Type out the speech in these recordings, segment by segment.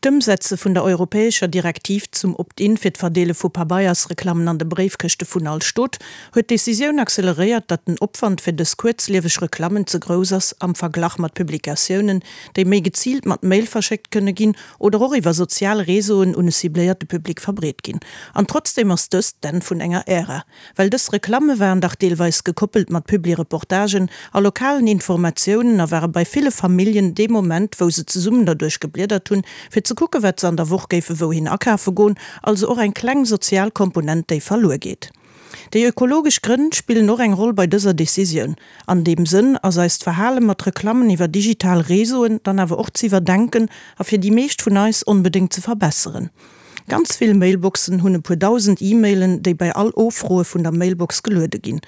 D'Ëmsetze vun der europäescher Direktiv zum Opt-in fir d'Verdeele vu Pabeiersreklammen an de Bréifkëschte vun all Stot huet d'Decisioun acceleréiert, datt den Opwand fir dës kuerzlieweg Reklammen ze grouss ass am Verglach mat Publikatiounen, déi méi geziilt mat Mail verschéckt kënne ginn oder och iwwer sozial Réseauen un e cibléierte Public verbreet ginn. An trotzdeem ass dëst d'Enn vun enger Ära. Well dës Reklamme waren dach deelweis gekoppelt mat Publireportagen a lokalen Informatiounen a ware bei ville Familljen dee Moment, wou se zesummen derduerch gebliedert hunn, fir ze kucke wat se an der Woch géife wouhin akafe goen, also och eng kleng sozial Komponent, déi verluer geet. Déi ökologesch Grënn spillen och eng Roll bei dëser Decisioun. An deem Sënn ass eist Verhale mat Reklammen iwwer digital Réseauen dann awer och z'iwwerdenken a fir déi meescht vun eis onbedéngt ze verbesseren. Ganz vill Mailboxen hunn e puer 1.000 E-Mailen, déi bei all Offroe vun der Mailbox geluede ginn.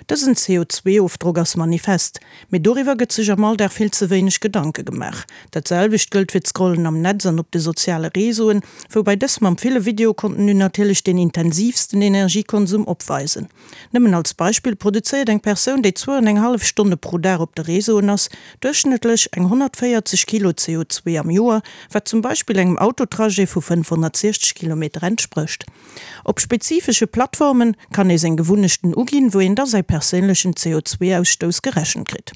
Dësen CO2-Ofdrock ass manifest, mee doriwwer gëtt sech am Alldag vill ze wéineg Gedanke gemaach. Dat selwecht gëllt fir d'Scrollen am Netz an op de soziale Réseauen, woubäi dës mam ville Videocontenu natierlech deen intensiivsten Energiekonsum opweisen. Nëmmen als Beispill, produzéiert eng Persoun, déi zwou an eng hallef Stonne pro Dag op de Réseauen ass, duerchschnëttlech eng 140 Kilo CO2 am Joer, wat zum Beispill engem Autotrajet vu 560 Kilometer entsprécht. Op spezifesche Plattforme kann ee seng Gewunnechten uginn, wou een da säi perséinlechen CO2-Ausstouss gerechent kritt.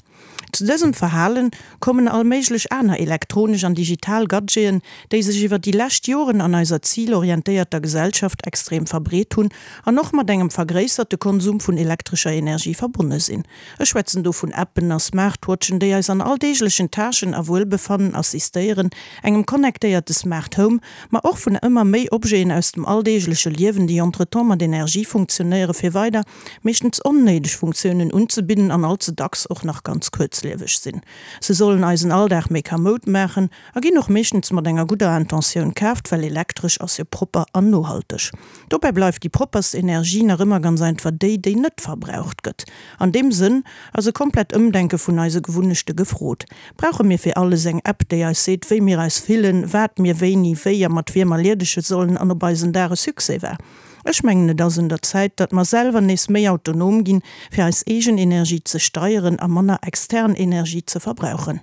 Zu dësem Verhalen kommen all méiglech aner elektronesch an digital Gadgeten, déi sech iwwer déi lescht Joren an eiser zilorientéierter Gesellschaft extrem verbreet hunn an och mat engem vergréisserte Konsum vun elektrescher Energie verbonne sinn. Ech schwätzen do vun Appen a Smartwatchen, déi eis an alldeeglechen Tâchen a Wuelbefannen assistéieren, engem connectéierte Smart Home, ma och vun ëmmer méi Objeten aus dem alldeegleche Liewen, déi entretemps mat Energie funktionéiere fir weider meeschtens onnéideg Funktiounen unzebidden an all ze dacks och nach ganz kuerzlieweg sinn. Se sollen eisen Alldag méi kamoud maachen a ginn och meeschtens mat enger gudder Intentioun kaaft, well elektresch ass jo propper an nohalteg. Dobäi bleift déi propperst Energie nach ëmmer ganz einfach déi, déi net verbraucht gëtt. An deem Sënn ass e komplett Ëmdenke vun eise Gewunnechte gefrot. Brauche mir fir alles eng App, déi eis seet, wéi mir eis fillen, wat mir wéini, wéi a mat wiem erliedege sollen an ob eisen Dag e Succès war? Ech mengen et ass un der Zäit, datt mer selwer nees méi autonom ginn, fir eis eegen Energie ze steieren a manner extern Energie ze verbrauchen.